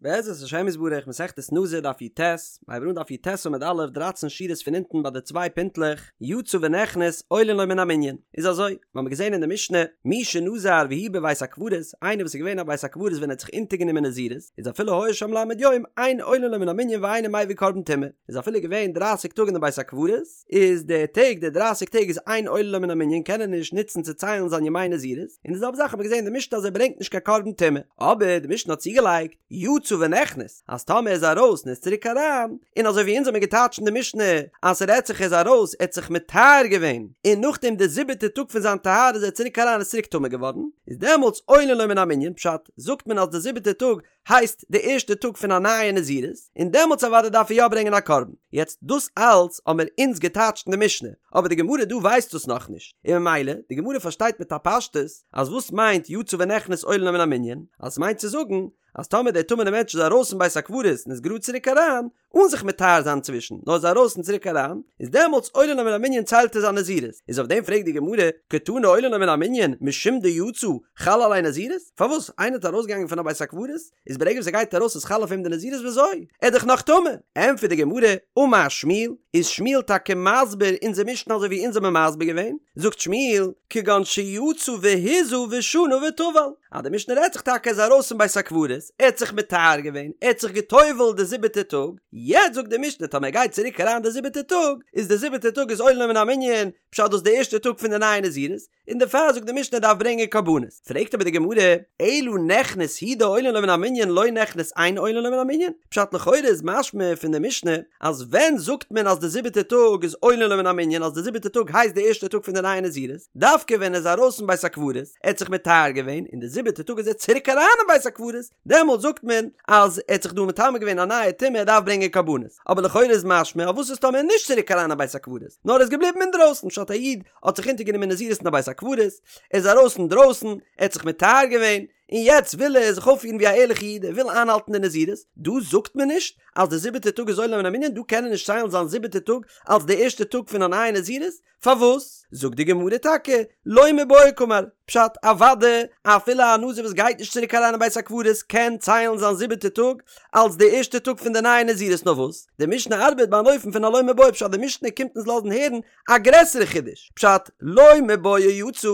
בעזרת השם יתברך מסכת נזיר דף י"ט, מ'הייבט אן דף י"ט עמוד א', דרייצן שורות פון אונטן ביי די צוויי פינטלעך, יצא ונכנס עולין לו מן המנין, איז אזוי, מ'האמיר געזען אין די משנה, מי שנזר והוא בבית הקברות, איינער וואס איז געווען אין בית הקברות ווען ער האט זיך אונטערגענומען נזירות, איז אפילו היה שם ל' יום, אין עולין לו מן המנין ואינו מביא קרבן טומאה, איז אפילו געווען דרייסיג טאג אין די בית הקברות, איז די טעג די דרייסיג טעג איז אין עולין לו מן המנין קען ער נישט נוצן צו ציילן זיין ימי נזירות, און די זעלבע זאך האט מען געזען אין די משנה אז ער ברענגט נישט קיין קרבן טומאה, אבער די משנה האט צוגעלייגט יצא ונכנס אז טאמער ער איז ארויס און איז צוריק אריין, און אזוי ווי אונז האמיר געטייטשט אין די משנה אז ס'רעדט זיך ער איז ארויס ער האט זיך מטהר געווען און נאכדעם די זיבעטע טאג פון זיין טהרה איז ער צוריק אריין איז צוריק טמא געווארן, איז דעמאלטס עולין לו מן המנין, פשט, זאגט מען אז די זיבעטע טאג הייסט די ערשטע טאג פון א נייע נזירות, און דעמאלטס אוודאי דארף ער יא ברענגען א קרבן. יעצט דאס אלץ האמיר אונז געטייטשט אין די משנה, אבער די גמרא דא ווייסט דאס נאכנישט, און ממילא די גמרא פארשטייט מיט א פשטות אז וואס מיינט יצא ונכנס עולין לו מן המנין, אז עס מיינט צו זאגן אז טאמער דער טמא'נער מענטש איז ארויס פון בית הקברות און איז גראד צוריק אריין, אן זיך מטהר זיין צווישן, נאר איז ארויס און צוריק אריין, איז דעמאלטס עולין לו מן המנין ציילט ער זיין נזירות, איז אויף דעם פרעגט די גמרא, קתני עולין לו מן המנין משום דיצא חל עליה נזירות? פארוואס איינער האט ארויסגעגאנגען פון א בית הקברות, איז ברגע וואס ער גייט ארויס איז חל אויף אים די נזירות וויאזוי? ער איז דאך נאך טמא! ענטפערט די גמרא, אמר שמואל, איז שמואל טאקע מסביר אונזער משנה אזוי ווי אונז האבן מסביר געווען, זאגט שמואל, כגון שיצא והזה ושנה וטבל, אז די משנה רעדט זיך טאקע ער איז ארויס פון בית הקברות, ער האט זיך מטהר געווען, ער האט זיך גע'טובל'ט די זיבעטע טאג, יעצט זאגט די משנה טאמער ער גייט צוריק אריין די זיבעטע טאג, איז די זיבעטע טאג איז עולין לו מן המנין, פשט דאס די ערשטע טאג פון די נייע נזירות, און דערפאר זאגט די משנה ער דארף ברענגען קרבנות. פרעגט אבער די גמרא, אלא נכנס הוא דעולין לו מן המנין לא נכנס אין עולין לו מן המנין, פשט לכאורה איז משמע פון די משנה אז ווען זאגט מען אז די זיבעטע טאג איז עולין לו מן המנין אז די זיבעטע טאג הייסט די ערשטע טאג פון די נייע נזירות, דווקא ווען ער איז ארויס פון בית הקברות, ער האט זיך מטהר געווען, און די זיבעטע טאג איז ער צוריק אריין אין בית הקברות, דעמאלט זאגט מען אז ער האט זיך דא מטמא געווען א נייע טומאה ער דארף ברענגען קרבנות, אבער לכאורה איז משמע אז וואס איז טאמער נישט צוריק אריין אין בית הקברות, נאר ער איז געבליבן אינדרויסן, פשט א איד האט זיך אונטערגענומען נזירות אין א בית הקברות, ער איז ארויס אינדרויסן, ער האט זיך מטהר געווען, און יעצט וויל ער זיך אויפפירן ווי א ערליכע איד, ער וויל איינהאלטן די נזירות, דא זאגט מען נישט אז די זיבעטע טאג איז עולין לו מן המנין, דא קען ער נישט ציילן זיין זיבעטע טאג אלס די ערשטע טאג פון א נייע נזירות, פארוואס? זאגט די גמרא טאקע, לא מיבעיא קאמר, פשט, אוודאי, אפילו א נזיר וואס גייט נישט צוריק אריין אין בית הקברות קען ציילן זיין זיבעטע טאג אלס די ערשטע טאג פון די נייע נזירות נאר וואס, די משנה ארבעט ביי אן אופן פון א לא מיבעיא פשט די משנה קומט אונז לאזן הערן א גרעסערע חידוש, פשט, לא מיבעיא יצא,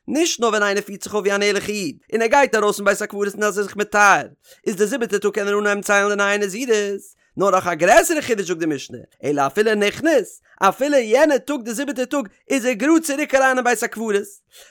נישט נאר ווען איינער פירט זיך אויף ווי אן ערליכע איד, און ער גייט ארויס פון בית הקברות און איז זיך מטהר, איז די זיבעטע טאג קען ער אנהייבן ציילן די נייע נזירות, נאר נאך א גרעסערע חידוש זאגט די משנה, אלא אפילו נכנס, אפילו יענע טאג די זיבעטע טאג איז ער גראד צוריק אריין אין בית הקברות,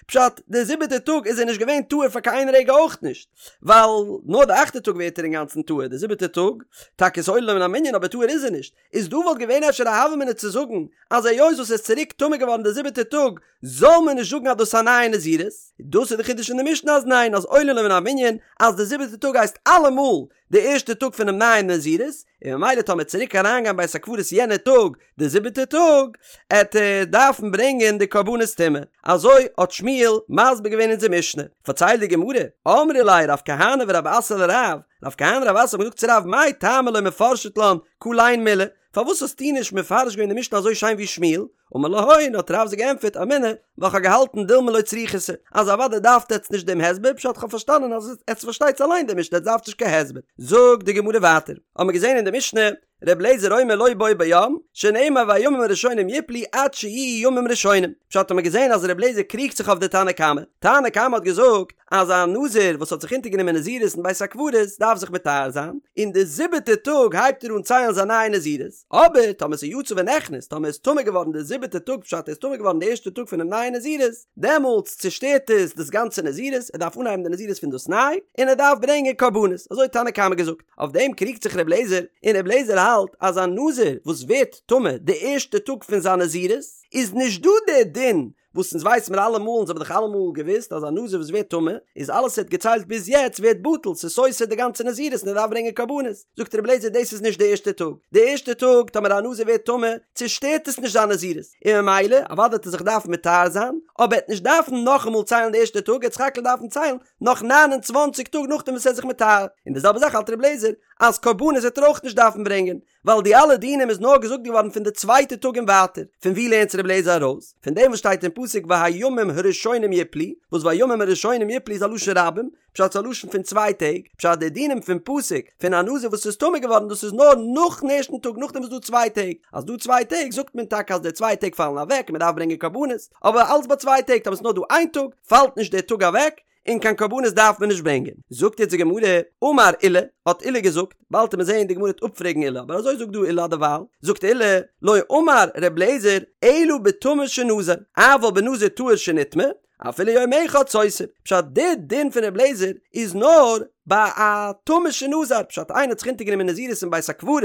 פשט, די זיבעטע טאג איז ער נישט געווען טהור פאר קיין איין רגע אויך נישט, ווייל נאר די אכטע טאג ווערט ער אינגאנצן טהור, די זיבעטע טאג, טאקע איז עולין לו מן המנין אבער טהור איז ער נישט, איז דא וואלט געווען אפשר א הוה אמינא צו זאגן אז היות וואס ער איז צוריק טמא געווארן די זיבעטע טאג זאל מען נישט זאגן אז דאס איז א נייע נזירות, דאס איז די חידוש אין די משנה אז ניין אז עולין לו מן המנין אז די זיבעטע טאג הייסט אלעמאל די ערשטע טאג פונעם נייעם נזירות, און ממילא טאמער צוריק אריינגיין בית הקברות יענע טאג די זיבעטע טאג עט ער דארפן ברענגען די קרבנות טומאה, אזוי האט שמואל מסביר געווען אונזער משנה, פארציילט די גמרא, אמרי ליה רב כהנא ורב אסי לרב, רב כהנא רב אסי האבן געזאגט צו רב מאי טעמא לא מפרשת לן כליין מילי, פארוואס האסטו נישט מפרש געווען די משנה אזוי שיין ווי שמואל? אמר להון, האט רב זיי געענטפערט, אמינא, ווייל כ'האב געהאלטן דילמא לא צריכיתו, אז אוודאי דארפט עטץ נישט דעם הסבר, פשט כ'האב פארשטאנען אז עטץ פארשטייטס אליין די משנה עטץ דארפטס נישט קיין הסבר. זאגט די גמרא ווייטער, האמיר געזען אין די משנה, ר' אליעזר אומר לא בו ביום, שנאמר והימים הראשונים יפלו עד שיהיו ימים ראשונים, פשט האמיר געזען אז ר' אליעזר קריגט זיך אויף די תנא קמא, תנא קמא האט געזאגט אז א נזיר וואס האט זיך אונטערגענומען נזירות אין בית הקברות דארף זיך מטהר זיין, און די זיבעטע טאג הייבט ער אן ציילן זיין נייע נזירות, אבער טאמער ס'איז יצא ונכנס, טאמער איז טמא געווארן די זיבעטע טאג פשט ער איז טמא געווארן די ערשטע טאג פונעם נייע נזירות, דעמאלטס צושטערט עס דאס גאנצע נזירות, ער דארף אנהייבן די נזירות פון דאס ניי, און ער דארף ברענגען קרבנות, אזוי האט תנא קמא געזאגט. אויף דעם קריגט זיך ר' אליעזר, און ר' אליעזר האלט אז א נזיר וואס ווערט טמא די ערשטע טאג פון זיין נזירות, איז נישט דא דער דין וואס אונז ווייס מיר אלעמאל, אונז האבן דאך אלעמאל געוואוסט אז א נזיר וואס ווערט טמא, איז אלעס ער האט געציילט ביז יעצט ווערט בטל, ס'איז סותר די גאנצע נזירות און ער דארף ברענגען קרבנות. זאגט רבי אליעזר דאס איז נישט די ערשטע טאג, די ערשטע טאג טאמער א נזיר ווערט טמא, צושטערט עס נישט זיין נזירות, און ממילא אוודאי וועט ער זיך דארפן מטהר זיין, אבער ער וועט נישט דארפן נאכאמאל ציילן די ערשטע טאג, ער וועט סך הכל דארפן ציילן נאך ניין און צוואנציג טאג נאכדעם וואס ער איז זיך מטהר, און די זעלבע זאך האלט רבי אליעזר אז קרבנות וועט ער אויך נישט דארפן ברענגען. ווייל די אלע דינים איז נאר געזאגט געווארן פון די צווייטע טאג און ווייטער, פון ווי לערנט ר' אליעזר ארויס? פון דעם וואס שטייט אין פסוק והימים הראשונים יפלו, וואס והימים הראשונים יפלו איז א לשון רבים, פשט ס'איז א לשון פון צוויי טעג, פשט די דינים פון פסוק פון א נזיר וואס איז טמא געווארן דאס איז נאר נאכן ערשטן טאג נאכדעם וואס דא צוויי טעג, אז דא צוויי טעג זאגט מען טאקע אז די צוויי טעג פאלן אוועק און מען דארף ברענגען קרבנות, אבער אלץ ביי צוויי טעג, טאמער ס'איז נאר דא איין טאג פאלט נישט דער טאג אוועק, און קיין קרבנות דארף מען נישט ברענגען. זאגט יעצט די גמרא, אמר עולא, האט עולא געזאגט, באלד וועט מען זעהן די גמרא וועט אפפרעגן עולא, אבער אזוי זאגט דא עולא דערווייל, זאגט עולא, לא אמר ר' אליעזר, אלא בטמא שנזר, אבל בנזיר טהור שנטמא, אפילו יום אחד סותר. פשט, די דין פון ר' אליעזר איז נאר ביי א טמא שנזר, פשט איינער האט זיך אונטערגענומען נזירות אין בית הקברות,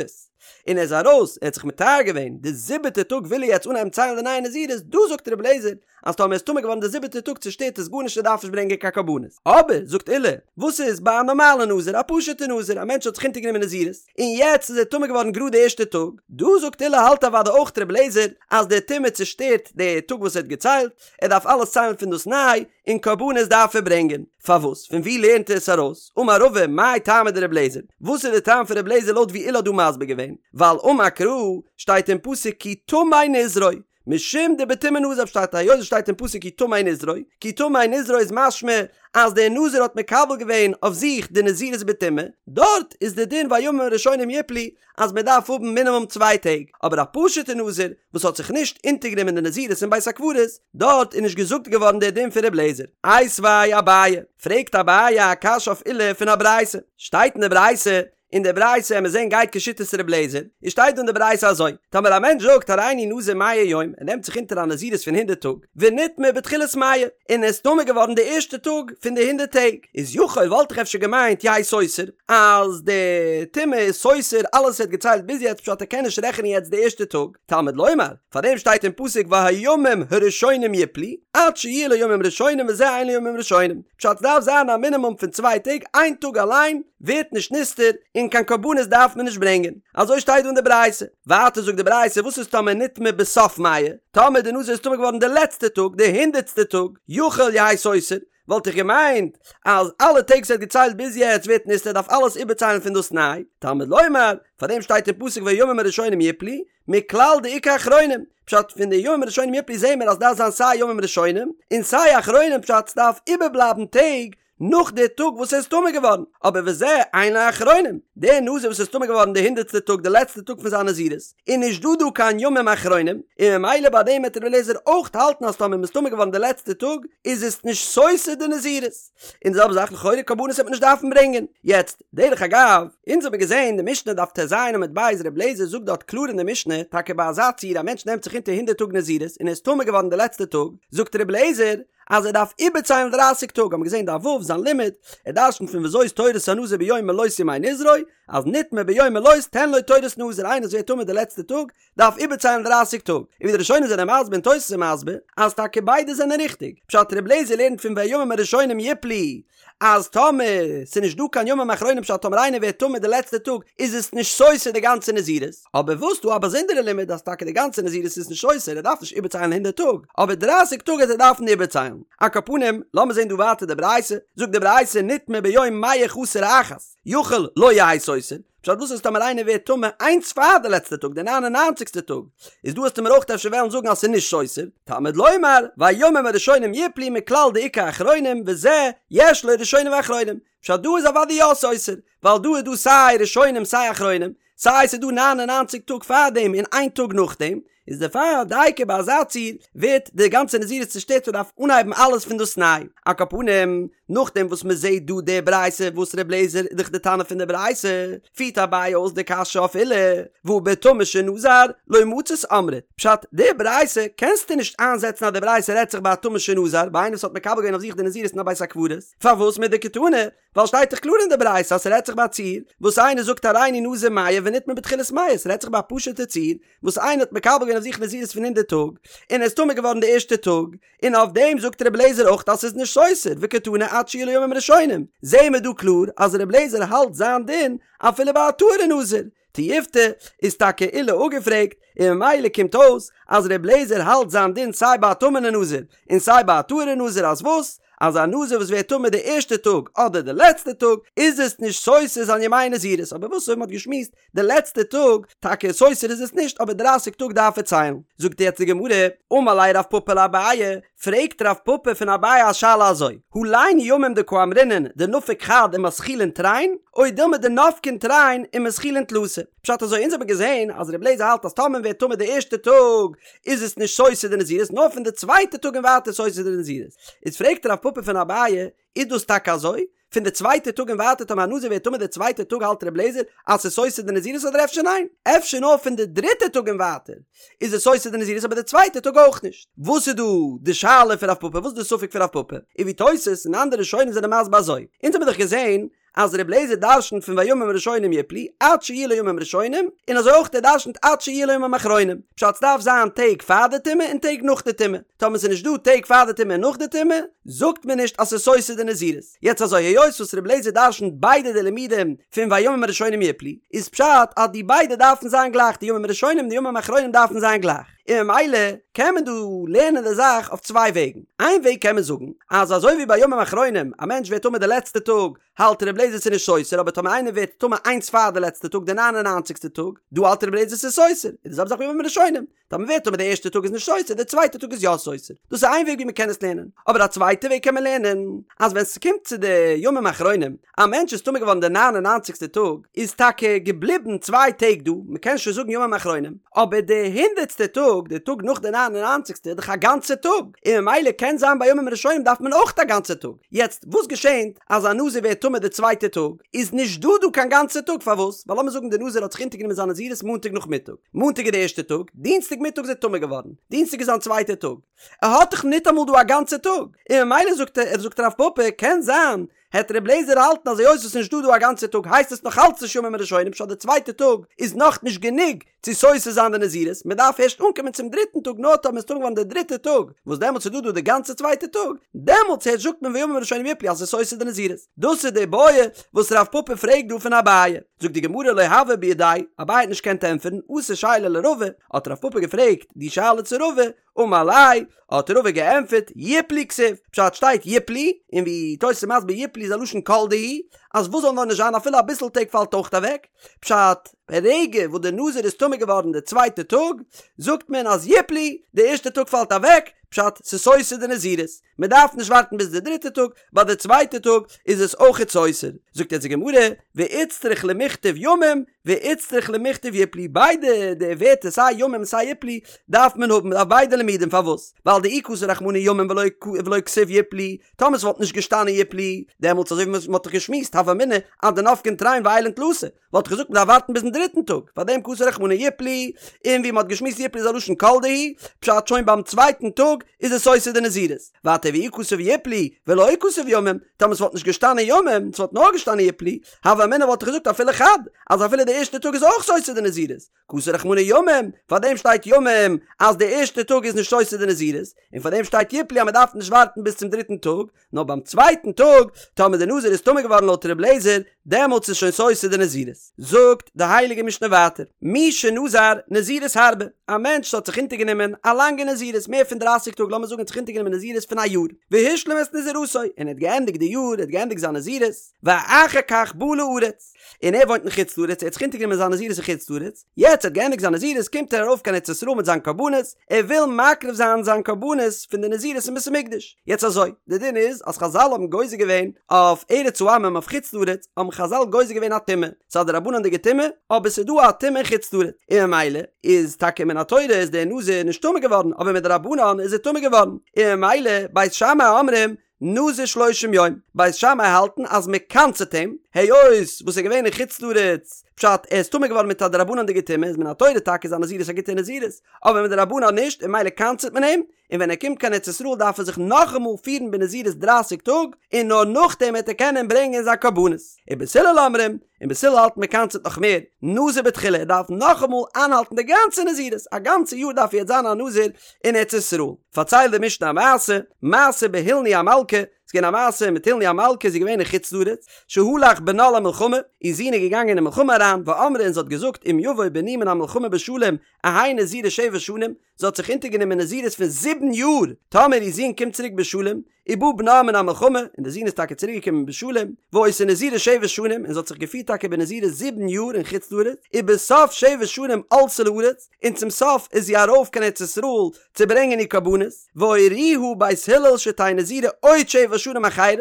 און ער איז ארויס, ער האט זיך מטהר געווען, די זיבעטע טאג וויל ער יעצט אנהייבן ציילן די נייע נזירות, דא זאגט ר' אליעזר, אז טאמער איז טמא געווארן די זיבעטע טאג צושטערט עס גארנישט ער דארף נישט ברענגען קיין קרבנות. אבער, זאגט עולא, וואס איז ביי א נארמאלע נזיר, א פשוטע נזיר, א מענטש האט זיך אונטערגענומען נזירות, און יעצט איז ער טמא געווארן גראד די ערשטע טאג, דא זאגט עולא האלט אוודאי אויך ר' אליעזר אז די טומאה צושטערט די טאג וואס ער האט געציילט, ער דארף אלעס ציילן פון דאס ניי, און קרבנות דארף ער ברענגען. פארוואס? פון וואו לערנט ער עס ארויס? אמר רבא, מאי טעמא דר' אליעזר? וואס איז די טעם פון ר' אליעזר לויט ווי עולא האט דא מסביר געווען? ווייל אמר קרא, שטייט אין פסוק כי טמא נזרו, משום דבטומאה נזר פשט היות עס שטייט אין פסוק כי טמא נזרו, כי טמא נזרו איז משמע אז דער נזיר האט מקבל געווען אויף זיך די נזירות בטומאה, דארט איז די דין והימים הראשונים יפלו אז מען דארף האבן מינימום צוויי טעג, אבער א פשוטע נזיר וואס האט זיך נישט אונטערגענומען די נזירות אין בית הקברות, דארט איז נישט געזאגט געווארן דער דין פון ר' אליעזר. איתיביה אביי, פרעגט אביי א קשיא אויף עולא פון א ברייתא, שטייט אין די ברייתא אין די ברייתא וועלן מיר זעהן גייט כשיטת ר' אליעזר, איז שטייט דא אין די ברייתא אזוי, טאמער א מענטש זאגט הריני נזיר מאה יום, ער נעמט זיך אונטער א נזירות פון הונדערט טאג, ונטמא בתחילת מאה, און ער איז טמא געווארן די ערשטע טאג פון די הונדערט טעג, איז יכול וואלט איך אפשר געמיינט יהא סותר, אז די טומאה איז סותר אלעס ער האט געציילט ביז יעצט פשט ער קען נישט רעכענען יעצט די ערשטע טאג, תלמוד לומר, פארדעם שטייט אין פסוק והימים הראשונים יפלו, עד שיהיו לו ימים ראשונים וזה אין לו ימים ראשונים, פשט ס'דארף זיין א מינימום פון צוויי טעג, איין טאג אליין ווערט נישט נסתר און קיין קרבנות דארף מען נישט ברענגען, אזוי שטייט דא אין די ברייתא, ווייטער זאגט די ברייתא וואס איז טאמער נטמא בסוף מאה, טאמער די נזיר איז טמא געווארן די לעצטע טאג, די הונדערטסטע טאג, יכול יהא סותר, וואלט איך געמיינט אז אלע טעג וואס ער האט געציילט ביז יעצט ווערט נסתר ער דארף אלעס איבערציילן פון דאס ניי, תלמוד לומר, פארדעם שטייט אין פסוק והימים הראשונים יפלו, מכלל דאיכא אחרונים, פשט פון די ימים הראשונים יפלו זעהן מיר אז דארף זיין סיי ימים ראשונים און סיי אחרונים פשט ס'דארף איבערבלייבן טעג נאך די טאג וואס ער איז טמא געווארן, אבער וזה אין לו אחרונים, דער נזיר וואס איז טמא געווארן די הונדערטסטע טאג די לעצטע טאג פון זיין נזירות, איז נישט דא דא קיין ימים אחרונים, און ממילא ביי דעם וועט רבי אליעזר אויך האלטן אז טאמער מ'איז טמא געווארן די לעצטע טאג איז עס נישט סותר די נזירות. און די זעלבע זאך לכאורה קרבנות וועט מען נישט דארפן ברענגען. יעצט, דרך אגב, אונז האבן געזען די משנה דף טז עמוד ב' ר' אליעזר זאגט דארט קלאר אין די משנה, טאקע ביי אזא ציור א מענטש נעמט זיך אונטער הונדערט טאג נזירות און ער איז טמא געווארן די לעצטע טאג, זאגט ר' אליעזר אז ער דארף איבערציילן דרייסיג טאג, האבן מיר געזען דף ו' זיין לימוד, ער דרשנ'ט פון וזאת תורת הנזיר ביום מלאות ימי נזרו, אז נטמא ביום מלאות תן לו תורת נזיר איינער וואס ווערט טמא די לעצטע טאג, דארף איבערציילן דרייסיג טאג, און ווי די ראשונים זענען מסביר און תוס' איז מסביר, אז טאקע ביידע זענען ריכטיג, פשט ר' אליעזר לערנט פון והימים הראשונים יפלו, אז טאמער ס'איז נישט דא קיין ימים אחרונים פשט טאמער איינער ווערט טמא די לעצטע טאג איז עס נישט סותר די גאנצע נזירות, אבער וואס דא א באזונדערע לימוד אז טאקע די גאנצע נזירות איז נישט סותר ער דארף נישט איבערציילן הונדערט טאג, אבער דרייסיג טאג וועט ער דארפן איבערציילן. על כל פנים, לאמיר זען דא ווייטער די ברייתא, זאגט די ברייתא נטמא ביום מאה חסר אחת, יכול לא יהא סותר, פשט וואס איז טאמער איינער ווערט טמא איינס פאר די לעצטע טאג די ניין און ניינציגסטע טאג איז דא וועסטו מיר אויך אפשר וועלן זאגן אז ס'איז נישט סותר תלמוד לומר והימים הראשונים יפלו מכלל דאיכא אחרונים וזה יש לו ראשונים ואחרונים פשט דא איז אוודאי יא סותר ווייל דא איז דא סיי ראשונים סיי אחרונים סיי ס'איז דא ניין און ניינציג טאג פארדעם און איין טאג נאכדעם איז דערפאר דייקא ביי אזא ציור ווערט די גאנצע נזירות צושטערט און דארף אנהייבן אלעס פון דאס ניי. על כל פנים, נאכדעם וואס מען זעט דא די ברייתא וואס ר' אליעזר איז דאך די תנא פון די ברייתא, פירט אביי אויס די קשיא אויף עולא, והא בטמא שנזר לא מצית אמרת, פשט, די ברייתא קענסטו נישט איינזעצן אז די ברייתא רעדט זיך ביי א טמא שנזר, ביי איינער וואס האט מקבל געווען אויף זיך די נזירות אין א בית הקברות, פארוואס מדקתני? ווייל שטייט דאך קלאר אין די ברייתא אז ס'רעדט זיך ביי א ציור וואס איינער זאגט הריני נזיר מאה ונטמא בתחילת מאה, ס'רעדט זיך ביי א פשוט'ע ציור וואס איינער האט מקבל געווען אויף זיך נזירות פון הונדערט טאג, און ער איז טמא געווארן די ערשטע טאג, און אויף דעם זאגט רבי אליעזר אויך אז ס'איז נישט סותר, וקתני עד שיהיו לו ימים ראשונים, זעהן מיר דא קלאר אז רבי אליעזר האלט זיין דין אפילו ביי א טהור'ע נזיר, תיובתא איז טאקע עולא אפגעפרעגט, און ממילא קומט אויס אז רבי אליעזר האלט זיין דין סיי ביי א טמא'נע נזיר און סיי ביי א טהור'ע נזיר אז וואס? אז א נזיר וואס ווערט טמא די ערשטע טאג אדער די לעצטע טאג איז עס נישט סותר זיין ימי נזירות, אבער וואס אויב מ'האט געשמועסט די לעצטע טאג, טאקע סותר איז עס נישט אבער דרייסיג טאג דארף ער ציילן. זאגט יעצט די גמרא, אמר ליה רב פפא לאביי, פרעגט רב פפא פון אביי א שאלה אזוי, הלין ימים דקאמרינן דנפק חד ומתחילין תרין, או דילמא דנפקין תרין ומתחילין תלתא. פשט אזוי, אונז האבן געזען אז רבי אליעזר האלט אז טאמער מען ווערט טמא די ערשטע טאג איז עס נישט סותר די נזירות נאר פון די צווייטע טאג און ווייטער סותר די נזירות. איז פרעגט רב פפא פון אביי, איז דאס טאקע אזוי? פון די צווייטע טאג און ווייטער טאמער א נזיר ווערט טמא די צווייטע טאג האלט ר' לעזער אז ס'איז סותר די נזירות אדער אפשר ניין? אפשר נאר פון די דריטע טאג און ווייטער איז עס סותר די נזירות אבער די צווייטע טאג אויך נישט? וואס איז דא די שאלה פון רב פפא? וואס איז די ספק פון רב פפא? און ווי תוס' און אנדערע ראשונים זענען מסביר אזוי, אונז האבן דאך געזען אז ר' לעזער דרשנ'ט פון והימים הראשונים יפלו עד שיהיו לו ימים ראשונים, און אזוי אויך ער דרשנ'ט עד שיהיו לו ימים אחרונים, פשט ס'דארף זיין טעג פאר די טומאה און טעג נאך די טומאה. טאמער ס'איז נישט דא טעג פאר די טומאה און נאך די טומאה, זאגט מען נישט אז ס'איז סותר די נזירות. יעצט אזוי, היות וואס רבי אליעזר דרשנ'ט ביידע די לימודים פון והימים הראשונים יפלו, איז פשט אז די ביידע דארפן זיין גלייך, די ימים הראשונים און די ימים אחרונים דארפן זיין גלייך. און ממילא קען מען דא לערנען די זאך אויף צוויי וועגן. איין וועג קען מען זאגן, אז אזוי ווי ביי ימים אחרונים, א מענטש ווערט טמא די לעצטע טאג, האלט רבי אליעזר ס'איז נישט סותר, אבער טאמער איינער ווערט טמא איינס פאר די לעצטע טאג, די ניין און ניינציגסטע טאג, דא האלט רבי אליעזר ס'איז סותר, איז די זעלבע זאך ביי ימים הראשונים. טאמער ווערט טמא די ערשטע טאג איז נישט סותר, די צווייטע טאג איז יא סותר. דאס איז איין וועג ווי מען קען עס לערנען. אבער א צווייטע וועג קען מען לערנען, אז ווען ס'קומט צו די ימים אחרונים, א מענטש איז טמא געווארן די ניין און ניינציגסטע טאג, איז טאקע געבליבן צוויי טעג דא, מען קען שוין זאגן ימים אחרונים, אבער די הונדערטסטע טאג, די טאג נאך די ניין און ניינציגסטע, איז דאך א גאנצע טאג, און ממילא קען זיין ביי ימים ראשונים דארף מען אויך א גאנצע טאג. יעצט, וואס געשענט אז א נזיר ווערט טמא די צווייטע טאג, איז נישט דא דא קיין גאנצע טאג, פארוואס? ווייל לאמיר זאגן די נזיר האט זיך אונטערגענומען זיין נזירות מאנטאג נאכמיטאג, מאנטאג איז די ערשטע טאג, דינסטאג מיטאג איז ער טמא געווארן, דינסטאג איז זיין צווייטע טאג, ער האט דאך ניטאמאל דא א גאנצע טאג, און ממילא זאגט ער, זאגט רב פפא, קען זיין, העט ר' לעזער האלטן אז היות עס איז נישט דא דא א גאנצע טאג הייסט עס נאך אלץ נישט ימים הראשונים פשט די צווייטע טאג איז נאך נישט גענוג צו סותר זיין די נזירות מען דארף ערשט אנקומען צום דריטן טאג נאר טאמער מ'איז טמא געווארן די דריטע טאג וואס דעמאלטס איז דא דא די גאנצע צווייטע טאג דעמאלטס הערשט זאגט מען והימים הראשונים יפלו אז עס איז סותר די נזירות דאס איז די בעיא וואס רב פפא פרעגט דא פון אביי זאגט די גמרא לא הוה בידיה אביי האט נישט געקענט ענטפערן אתא שייליה לרבא האט רב פפא געפרעגט די שאלה צו רבא אמר ליה, האט רבא געענטפערט, יפלו כתיב, פשט שטייט יפלו, און ווי תוס' איז מסביר יפלו איז א לשון כל דהו, אז וואס זאל נאר נישט זיין אפילו אביסל טעג פאלט אויך אוועק, פשט, ברגע וואס די נזיר איז טמא געווארן די צווייטע טאג, זאגט מען אז יפלו, די ערשטע טאג פאלט אוועק, פשט, ס'איז סותר די נזירות. מען דארף נישט ווארטן ביז די דריטע טאג, ביי די צווייטע טאג איז עס אויכעט סותר. זאגט יעצט די גמרא, ואיצטריך למיכתב ימים, ואיצטריך למיכתב יפלו, ביידע די ווערטער סיי ימים און סיי יפלו דארף מען האבן, מען דארף ביידע לימודים, פארוואס? ווייל דאי כתב רחמנא ימים ולא ולא כתיב יפלו, טאמער ס'וואלט נישט געשטאנען יפלו, דעמאלטס אזוי ווי מ'האט דאך געשמועסט הוה אמינא אז דנפקין תרין ועיילין תלתא, וואלט איך געזאגט מ'דארף ווארטן ביזן דריטן טאג, פארדעם כתב רחמנא יפלו, און ווי מ'האט געשמועסט יפלו איז א לשון כל דהו, פשט שוין ביים צווייטן טאג איז עס סותר די נזירות. ווייטער ואי כתב יפלו ולא כתב ימים, טאמער ס'וואלט נישט געשטאנען ימים, ס'וואלט נאר געשטאנען יפלו, הוה אמינא וואלט איך געזאגט אפילו חד, אז אפילו די ערשטע טאג איז אויך סותר די נזירות, כתב רחמנא ימים, פארדעם שטייט ימים אז די ערשטע טאג איז נישט סותר די נזירות, און פארדעם שטייט יפלו אז מ'דארף נישט ווארטן ביז צום דריטן טאג, נאר ביים צווייטן טאג, טאמער די נזיר איז טמא געווארן לויט ר' לעזער, דעמאלטס איז שוין סותר די נזירות. זאגט די הייליגע משנה ווייטער, מי שנזר נזירות הרבה, א מענטש האט זיך אונטערגענומען א לאנגע נזירות, מער פון דרייסיג טאג, לאמיר זאגן ער האט זיך אונטערגענומען נזירות פון א יאר, והשלים את נזירותו, און ער האט געענדיגט די יאר, ער האט געענדיגט זיין נזירות, ואחר כך בא לארץ, און ער וואוינט אין חוץ לארץ, ער האט זיך אונטערגענומען זיין נזירות אין חוץ לארץ, יעצט ער האט געענדיגט זיין נזירות קומט ער ארויף קיין ארץ ישראל מיט זיין קרבנות, ער וויל מקריב זיין זיין קרבנות פון די נזירות אין בית המקדש. יעצט אזוי, די דין איז אז חזל האבן גוזר געווען אויף ארץ העמים אויף חוץ לארץ האבן חזל גוזר געווען א טומאה, ס'איז א דרבנן'דיגע טומאה, אבער ס'איז דא א טומאה אין חוץ לארץ, און ממילא איז טאקע מן התורה איז דער נזיר נישט טמא געווארן אבער מדרבנן איז ער טמא געווארן, און ממילא בית שמאי אומרים נזיר שלושים יום, בית שמאי האלטן אז מען קנס'עט אים, היות וואס ער איז געווען אין חוץ לארץ, פשט ער איז טמא געווארן מיט א דרבנן'דיגע טומאה איז מן התורה טאקע איז זיין נזירות א גוטע נזירות, אבער מדרבנן נישט און ממילא קנס'עט מען אים, און ווען ער קומט קיין ארץ ישראל דארף ער זיך נאכאמאל פירן בנזירות דרייסיג טאג, און נאר נאכדעם וועט ער קענען ברענגען זיין קרבנות. ובית הלל אומרים, און בית הלל האלט מען קנס'עט נאך מער, נזיר בתחילה, ער דארף נאכאמאל איינהאלטן די גאנצע נזירות, א גאנצע יאר דארף ער יעצט זיין א נזיר אין ארץ ישראל. פארציילט די משנה א מעשה, מעשה בהילני המלכה, ס'איז געווען א מעשה מיט הילני המלכה, זי איז געווען אין חוץ לארץ, שהלך בנה למלחמה, איר זון איז געגאנגען אין מלחמה אריין, ואמרה און זי האט געזאגט אם יבוא בני מן המלחמה בשלום, אהא נזירה שבע שנים, זי האט זיך אונטערגענומען נזירות פון זיבן יאר, טאמער איר זון קומט צוריק בשלום, ובא בנה מן המלחמה, און די זון איז טאקע צוריק געקומען בשלום, והיתה נזירה שבע שנים, און זי האט זיך געפירט טאקע בנזירות זיבן יאר אין חוץ לארץ, ובסוף שבע שנים עלתה לארץ, און צום סוף איז זי ארויף קיין ארץ ישראל צו ברענגען איר קרבנות, והורוה בית הלל שתהא נזירה עוד שבע שנים אחרות,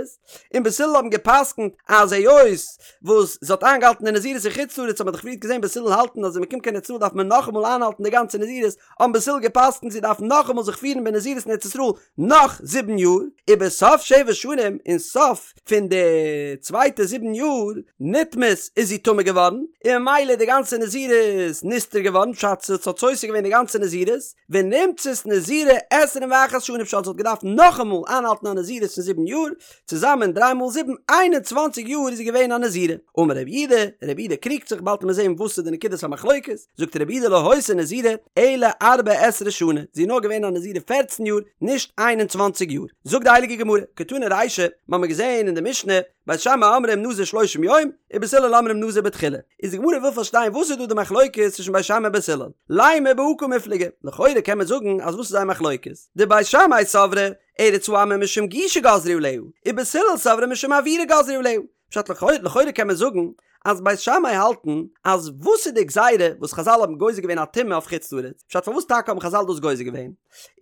און בית הלל האבן גע'פסק'נט אז היות וואס זי האט איינגעהאלטן די נזירות אין חוץ לארץ האט מען דאך פריערט געזען בית הלל האלטן אז ווען מען קומט קיין ארץ ישראל דארף מען נאכאמאל איינהאלטן די גאנצע נזירות, האבן בית הלל גע'פסק'נט זי דארף נאכאמאל זיך פירן בנזירות אין ארץ ישראל נאך זיבן יאר, ובסוף שבע שנים, אין סוף פון די צווייטע זיבן יאר, נטמאת איז זי טמא געווארן, און ממילא איז די גאנצע נזירות נסתר געווארן, פשט ס'האט סותר געווען די גאנצע נזירות, ונמצאת נזירה עשרים ואחת שנה פשט זי האט געדארפט נאכאמאל איינהאלטן א נזירות פון זיבן יאר, צוזאמען דריי מאל זיבן, איין און צוואנציג יאר איז זי געווען א נזירה. אמר רב יהודה, רב יהודה קריגט זיך, באלד וועט מען זען וואס איז די נקודת המחלוקת, זאגט רב יהודה לא היתה נזירה אלא ארבע עשרה שנה, זי איז נאר געווען א נזירה פערצן יאר, נישט איין און צוואנציג יאר. זאגט די הייליגע גמרא, קתני רישא, מ'האמיר געזען אין די משנה, בית שמאי אומרים נזיר שלושים יום, ובית הלל אומרים נזיר בתחילה. איז די גמרא וויל פארשטיין וואס איז דא די מחלוקת צווישן בית שמאי און בית הלל. לימא בהא קמיפלגי, לכאורה קען מען זאגן אז וואס איז זייער מחלוקת? דבית שמאי סברי, ארץ העמים משום גושה גזרו עליה, ובית הלל סברי משום אוירא גזרו עליה. פשט לכאורה קען מען זאגן אז בית שמאי האלטן אז וואס איז די גזירה וואס חזל האבן גוזר געווען א טומאה אויף חוץ לארץ? פשט פארוואס טאקע האבן חזל דאס גוזר געווען?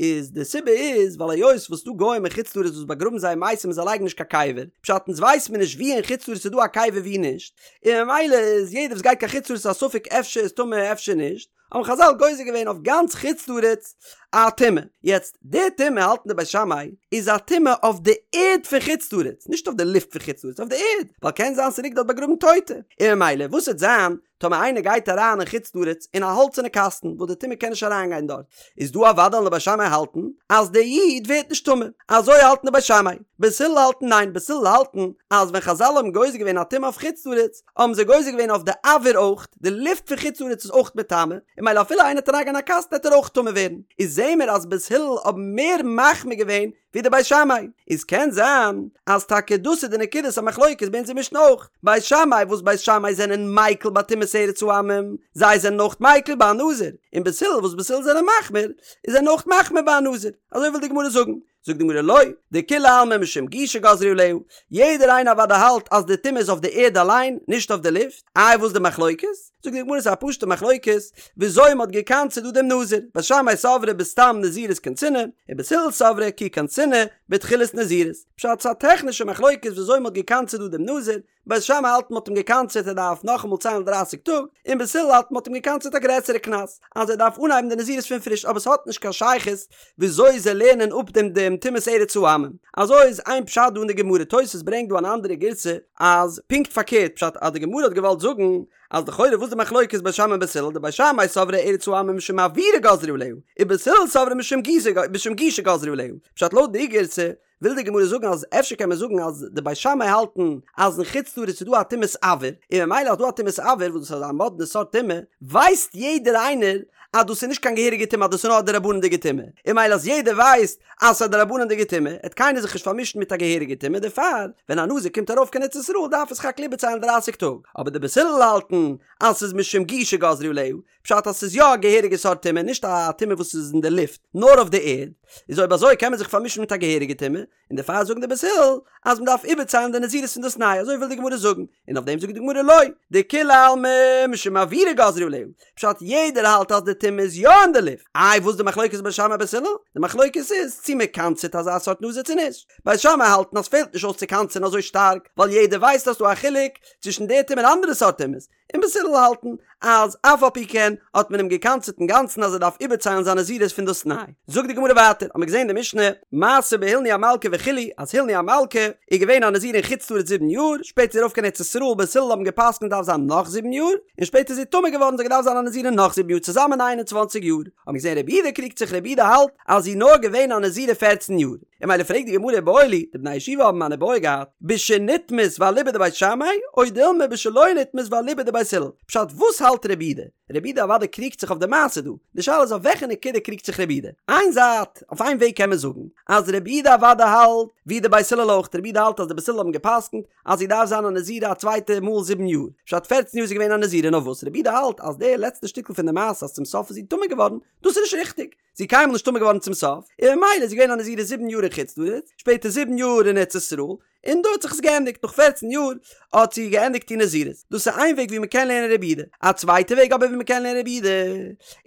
איז די סיבה איז ווייל היות וואס ס'דא גוים אין חוץ לארץ וואס באגראבן זייער מתים און זיי לייגן נישט קיין קבר, פשט אונז ווייסט מיר נישט ווי אין חוץ לארץ איז דא א קבר ווי נישט, און ממילא איז יעדער וואס גייט קיין חוץ לארץ איז א ספק אפשר איז טמא אפשר נישט, האבן חזל גוזר געווען אויף גאנץ חוץ לארץ א טומאה. יעצט די טומאה האלטן די בית שמאי איז א טומאה אויף די ערד פון חוץ לארץ, נישט אויף די לופט פון חוץ לארץ, אויף די ערד, ווייל קען זיין ס'ליגט דארט באגראבן טויטע, און ממילא וואס וועט זיין טאמער איינער גייט אריין אין חוץ לארץ אין א האלצערנע קאסטן וואס די טומאה קען נישט אריינגיין דארט, איז דא אוודאי וועלן די בית שמאי האלטן אז דער איד ווערט נישט טמא, אזוי האלטן די בית שמאי. בית הלל האלטן ניין, בית הלל האלטן אז ווען חזל האבן גוזר געווען א טומאה אויף חוץ לארץ, האבן זיי גוזר געווען אויף די אויר אויך, די לופט פון חוץ לארץ איז אויך מטמא, און ממילא אפילו איינער וועט אריינגיין אין א קאסטן וועט ער אויך טמא ווערן. איז זעהן מיר אז בית הלל האבן מער מחמיר געווען ווי די בית שמאי, איז קען זיין אז טאקע דאס איז די נקודת המחלוקת ביי אונזער משנה אויך, בית שמאי וואס בית שמאי זענען מיקל ביי טומאת ארץ העמים, זיי זענען אויך מיקל ביי א נזיר, און בית הלל וואס בית הלל זענען מחמיר, איז זענען אויך מחמיר ביי א נזיר, אזוי וויל די גמרא זאגן. זאגט די גמרא לא, דכולי עלמא משום גושה גזרו עליה, יעדער איינער אוודאי האלט אז די טומאה איז אויף די ערד אליין, נישט אויף די לופט, איי וואס די מחלוקת? זאגט די גמרא ס'איז א פשוטע מחלוקת וויאזוי מ'האט געקנס'עט דא דעם נזיר, בית שמאי סברי בסתם נזירות קנסינהו, ובית הלל סברי כי קנסינהו בתחילת נזירות, פשט ס'איז א טעכנישע מחלוקת וויאזוי מ'האט געקנס'עט דא דעם נזיר, בית שמאי האלט מ'האט אים געקנס'עט ער דארף נאכאמאל ציילן דרייסיג טאג, און בית הלל האלט מ'האט אים געקנס'עט א גרעסערע קנס אז ער דארף אנהייבן די נזירות פון פריש אבער ס'האט נישט קיין שייכות וויאזוי זיי לערנען אפ דעם דעם טומאת ארץ העמים. אזוי איז איין פשט דא אין די גמרא, תוס' ברענגט דא אן אנדערע גירסא אז פונקט פארקערט פשט אז די גמרא האט געוואלט זאגן אז לכאורה וואס די מחלוקת בית שמאי און בית הלל דבית שמאי סברי ארץ העמים משום אוירא גזרו עליה ובית הלל סברי משום משום גושה גזרו עליה פשט לויט די גירסא וויל די גמרא זאגן אז אפשר קען מען זאגן אז די בית שמאי האלטן אז אין חוץ לארץ איז דא א טומאת אויר, און ממילא אז דא א טומאת אויר וואס דאס איז א מאדנע סארט טומאה, ווייסט יעדער איינער אז דאס איז נישט קיין געהעריגע טומאה אז דאס איז נאר א דרבנן'דיגע טומאה, און ממילא אז יעדער ווייסט אז ס'איז א דרבנן'דיגע טומאה, העט קיינער זיך נישט פארמישן מיט א געהעריגע טומאה, דערפאר ווען א נזיר קומט ארויף קיין ארץ ישראל דארף ער סך הכל איבערציילן דרייסיג טאג, אבער די בית הלל האלטן אז ס'איז משום גושה גזרו עליה, פשט אז ס'איז יא א געהעריגע סארט טומאה, נישט א טומאה וואס איז אין די לופט, נאר אויף די ערד, איז אויב אזוי קען מען זיך פארמישן מיט א געהעריגע טומאה, און דערפאר זאגן די בית הלל אז מ'דארף איבערציילן די נזירות פון דאס ניי, אזוי וויל די גמרא זאגן, און אויף דעם זאגט די גמרא לא, דכולי עלמא משום אוירא גזרו עליה, פשט יעדער האלט אז די טומאה איז יא אין די לופט, איי וואס די מחלוקת בית שמאי בית הלל? די מחלוקת איז צו מ'קנס'עט אזא סארט נזיר צו נישט, בית שמאי האלטן אז פעלט נישט אויס צו קנס'ען אזוי שטארק, ווייל יעדער ווייסט אז ס'דא א חילוק צווישן די טומאה און אנדערע סארט טומאות, און בית הלל האלטן אז אף על פי כן האט מען אים געקנס'עט אינגאנצן אז ער דארף איבערציילן זיין נזירות פון דאס ניי. זאגט די גמרא ווייטער, האמיר געזען די משנה, מעשה בהילני המלכה וכו', אז הילני המלכה איז געווען א נזיר אין חוץ לארץ זיבן יאר, שפעטער איז ארויף קיין ארץ ישראל, בית הלל האבן געפסקנט דארף זיין נאך זיבן יאר, און שפעטער איז זי טמא געווארן זי האט געדארפט זיין א נזירה נאך זיבן יאר צוזאמען איין און צוואנציג יאר, האמיר געזען רבי יהודה קריגט זיך רבי יהודה האלט אז זי איז נאר געווען א נזירה פערצן יאר. און ממילא פרעגט די גמרא איבעיא להו, די בני הישיבה האבן אן איבעיא געהאט, בשנטמאת ואליבא דבית שמאי, או דילמא בשלא נטמאת ואליבא דבית הלל. פשט וואס האלט רבי יהודה? רבי יהודה אוודאי קריגט זיך אויף די מעשה דא. די שאלה איז אויף וועלכע נקודה קריגט זיך רבי יהודה? איין זייט. אויף איין וועג קען מען זאגן אז רבי יהודה אוודאי האלט ווי די בית הלל אויך, רבי יהודה האלט אז די בית הלל האבן גע'פסק'נט אז זי דארף זיין א נזירה א צווייטע מאל זיבן יאר, פשט פערצן יאר איז זי געווען א נזירה נאר וואס רבי יהודה האלט אז די לעצטע שטיקל פון די מעשה אז צום סוף איז זי טמא געווארן דאס איז נישט ריכטיג, זי איז קיינמאל נישט טמא געווארן צום סוף, און ממילא איז זי געווען א נזירה זיבן יאר אין חוץ לארץ, שפעטער זיבן יאר אין ארץ ישראל, און דא האט זיך עס געענדיגט, נאך פערצן יאר האט זי געענדיגט איר נזירות. דאס איז איין וועג ווי מען קען לערנען רבי יהודה. א צווייטע וועג אבער ווי מען קען לערנען רבי יהודה,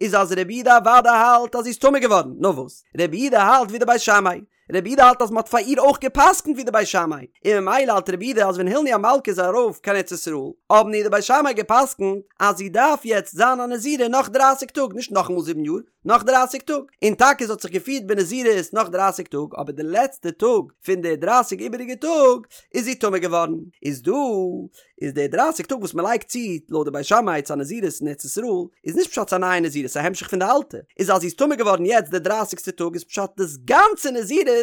איז אז רבי יהודה אוודאי האלט אז זי איז טמא געווארן, נאר וואס? רבי יהודה האלט ווי די בית שמאי, רבי יהודה האלט אז מען האט פאר איר אויך גע'פסק'נט ווי די בית שמאי, און ממילא האלט רבי יהודה אז ווען הילני המלכה איז ארויף קיין ארץ ישראל, האבן איר די בית שמאי גע'פסק'נט אז זי דארף יעצט זיין א נזירה נאך דרייסיג טאג, נישט נאכאמאל זיבן יאר, נאך דרייסיג טאג, און טאקע זי האט זיך געפירט בנזירות נאך דרייסיג טאג, אבער די לעצטע טאג פון די דרייסיג איבעריגע טאג איז זי טמא געווארן, איז דא איז די דרייסיג טאג וואס מען לייגט צו לויט די בית שמאי צו א נזירות אין ארץ ישראל איז נישט פשט ס'איז א נייע נזירות ס'איז א המשך פון די אלטע, איז אז זי איז טמא געווארן יעצט די דרייסיגסטע טאג איז פשט דאס גאנצע נזירות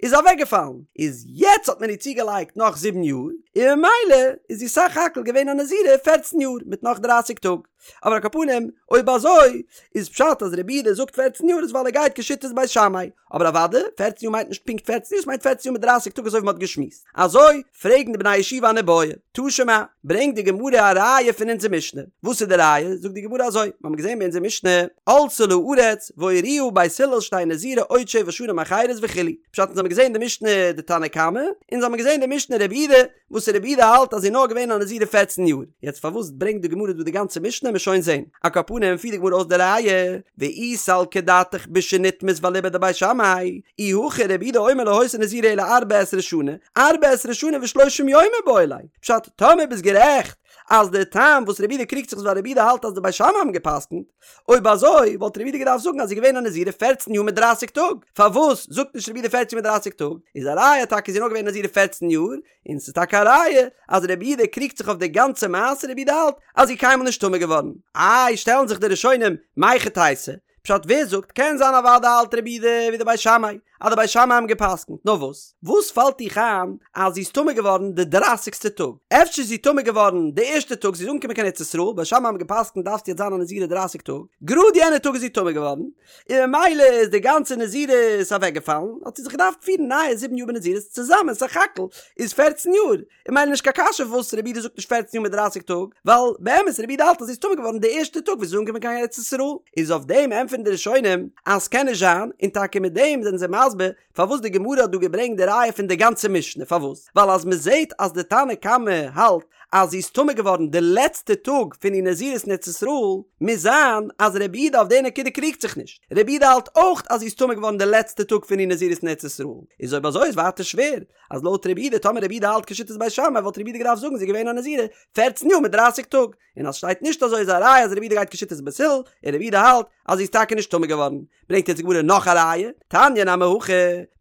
איז אוועקגעפאלן, איז יעצט האט מען איר צוגעלייגט נאך זיבן יאר, און ממילא איז זי סך הכל געווען א נזירה פערצן יאר מיט נאך דרייסיג טאג. אבער על כל פנים, אויב אזוי, איז פשט אז רבי יהודה זאגט פערצן יאר איז ווייל ער גייט כשיטת בית שמאי, אבער אוודאי, פערצן יאר מיינט נישט פונקט פערצן יאר, ס'מיינט פערצן יאר מיט דרייסיג טאג אזוי ווי מ'האט געשמועסט. אזוי פרעגן די בני הישיבה אן איבעיא. תא שמע, ברענגט די גמרא א ראיה פון אונזער משנה. וואס איז די ראיה? זאגט די גמרא אזוי, מ'האמיר געזען ביי אונזער משנה, עלתה לארץ והורוה בית הלל שתהא נזירה עוד שבע שנים אחרות וכו'. פשט אונז האמיר געזען די משנה די תנא קמא, אונז האמיר געזען די משנה רבי יהודה, וואס רבי יהודה האלט אז זי איז נאר געווען א נזירה פערצן יאר, יעצט פארוואס ברענגט די גמרא דא די גאנצע משנה מ'עט שוין זעהן, על כל פנים פירט די גמרא אויס די ראיה, ואי סלקא דעתך בשנטמאת ואליבא דבית שמאי, אי הכי רבי יהודה אומר לא היתה נזירה אלא ארבע עשרה שנה, ארבע עשרה שנה ושלושים יום מיבעי ליה, פשט, טאמער ביסט גערעכט אז די טעם וואס רבי יהודה קריגט זיך איז ווייל רבי יהודה האלט אז די בית שמאי האבן גע'פסק'נט, אויב אזוי וואלט רבי יהודה געדארפט זאגן אז זי איז געווען א נזירה פערצן יאר מיט דרייסיג טאג, פארוואס זאגט נישט רבי יהודה פערצן יאר מיט דרייסיג טאג? איז א ראיה טאקע זי איז נאר געווען א נזירה פערצן יאר, און ס'איז טאקע א ראיה אז רבי יהודה קריגט זיך אויף די גאנצע מעשה, רבי יהודה האלט אז זי איז קיינמאל נישט טמא געווארן. איי שטעלן זיך די ראשונים מהיכי תיתי, פשט ווער זאגט קען זיין אוודאי האלט רבי יהודה ווי די בית שמאי אז די בית שמאי האבן געפסקנט נאר וואס וואס פאלט דיך איין אז זי איז טמא געווארן די דרייסיגסטע טאג אפשר איז זי טמא געווארן די ערשטע טאג זי איז אנגעקומען קיין ארץ ישראל בית שמאי האבן געפסקנט דארפסט יעצט זיין א נזירה דרייסיג טאג גראד יענע טאג איז זי טמא געווארן און ממילא איז די גאנצע נזירות אוועקגעפאלן האט זי זיך געדארפט פירן נייע זיבן יאר בנזירות צוזאמען סך הכל איז פערצן יאר און ממילא נישט קיין קשיא פארוואס רבי יהודה זאגט נישט פערצן יאר מיט דרייסיג טאג, ווייל באמת רבי יהודה האלט אז זי איז טמא געווארן די ערשטע טאג וואס זי איז אנגעקומען קיין ארץ ישראל, איז אויף דעם ענטפערן די ראשונים אז ס'קען נישט זיין, און טאקע מיט דעם זענען זיי מסביר פארוואס די גמרא האט דא געברענגט די ראיה פון די גאנצע משנה, פארוואס? ווייל אז מ'זעט אז די תנא קמא האלט אז זי איז טמא געווארן די לעצטע טאג פון איר נזירות אין ארץ ישראל, מוז זיין אז רבי יהודה אויף די נקודה קריגט זיך נישט, רבי יהודה האלט אויך אז זי איז טמא געווארן די לעצטע טאג פון איר נזירות אין ארץ ישראל, איז אויב אזוי איז ווייטער שווער, אז לויט רבי יהודה טאמער רבי יהודה האלט כשיטת בית שמאי וואלט רבי יהודה געדארפט זאגן זי איז געווען א נזירה פערצן יאר מיט דרייסיג טאג, און אז שטייט נישט אזוי איז א ראיה אז רבי יהודה גייט כשיטת בית הלל, און רבי יהודה האלט אז זי איז טאקע נישט טמא געווארן. ברענגט יעצט די גמרא נאך א ראיה, תניא נמי הכי,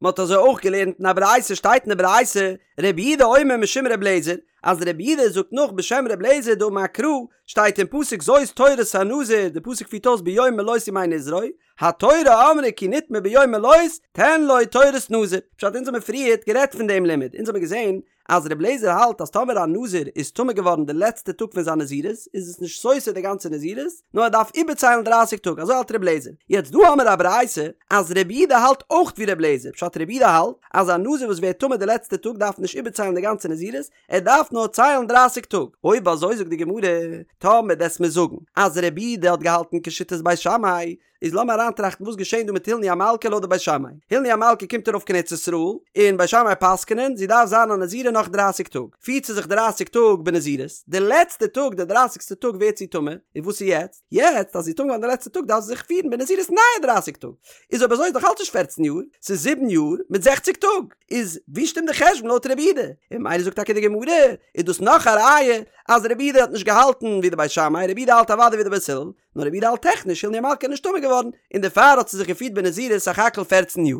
מען האט אזוי אויך געלערנט אין א ברייתא שטייט אין די ברייתא רבי יהודה אומר משום רבי אליעזר, אז רבי יהודה זאגט נאך בשם רבי אליעזר דאמר קרא, שטייט אין פסוק זאת תורת הנזיר, די פסוק פירט אויס ביום מלאות ימי נזרו, התורה אמרה כי נטמא ביום מלאות תן לו תורת נזיר. פשט אונז האמיר פריערט גערעדט פון דעם לימוד, אונז האמיר געזען אז רבי אליעזר האלט אז טאמער א נזיר איז טמא געווארן די לעצטע טאג פון זיין נזירות איז עס נישט סותר די גאנצע נזירות נאר ער דארף איבערציילן דרייסיג טאג אזוי האלט רבי אליעזר. יעצט דא האמיר א ברייתא אז רבי יהודה האלט אויך ווי רבי אליעזר, פשט רבי יהודה האלט אז א נזיר וואס ווערט טמא די לעצטע טאג דארף נישט איבערציילן די גאנצע נזירות ער דארף נאר ציילן דרייסיג טאג. אויב אזוי זאגט די גמרא, טאמער דו'סט מיר זאגן אז רבי יהודה האט געהאלטן כשיטת בית שמאי, איז לאמיר אריינטראכטן וואס געשען דא מיט הילני המלכה לויט די בית שמאי. הילני המלכה קומט ארויף קיין ארץ ישראל, און בית שמאי פסק'נען, זי דארף זיין א נזירה נאך דרייסיג טאג. פירט זי זיך דרייסיג טאג בנזירות, די לעצטע טאג, די דרייסיגסטע טאג ווערט זי טמא, און וואס איז יעצט? יעצט אז זי איז טמא געווארן די לעצטע טאג דארף זי זיך פירן בנזירות נייע דרייסיג טאג. איז אויב אזוי איז דאך אלץ נישט פערצן יאר, ס'איז זיבן יאר מיט זעכציג טאג. איז ווי שטימט די חשבון לויט רבי יהודה? און ממילא זאגט טאקע די גמרא, איז דאס נאך א ראיה אז רבי יהודה האט נישט געהאלטן ווי די בית שמאי, רבי יהודה האלט אוודאי ווי די בית הלל, נאר רבי יהודה האלט טעכניש הילני המלכה איז נישט טמא געווארן, און דערפאר האט זי זיך געפירט בנזירות סך הכל פערצן יאר.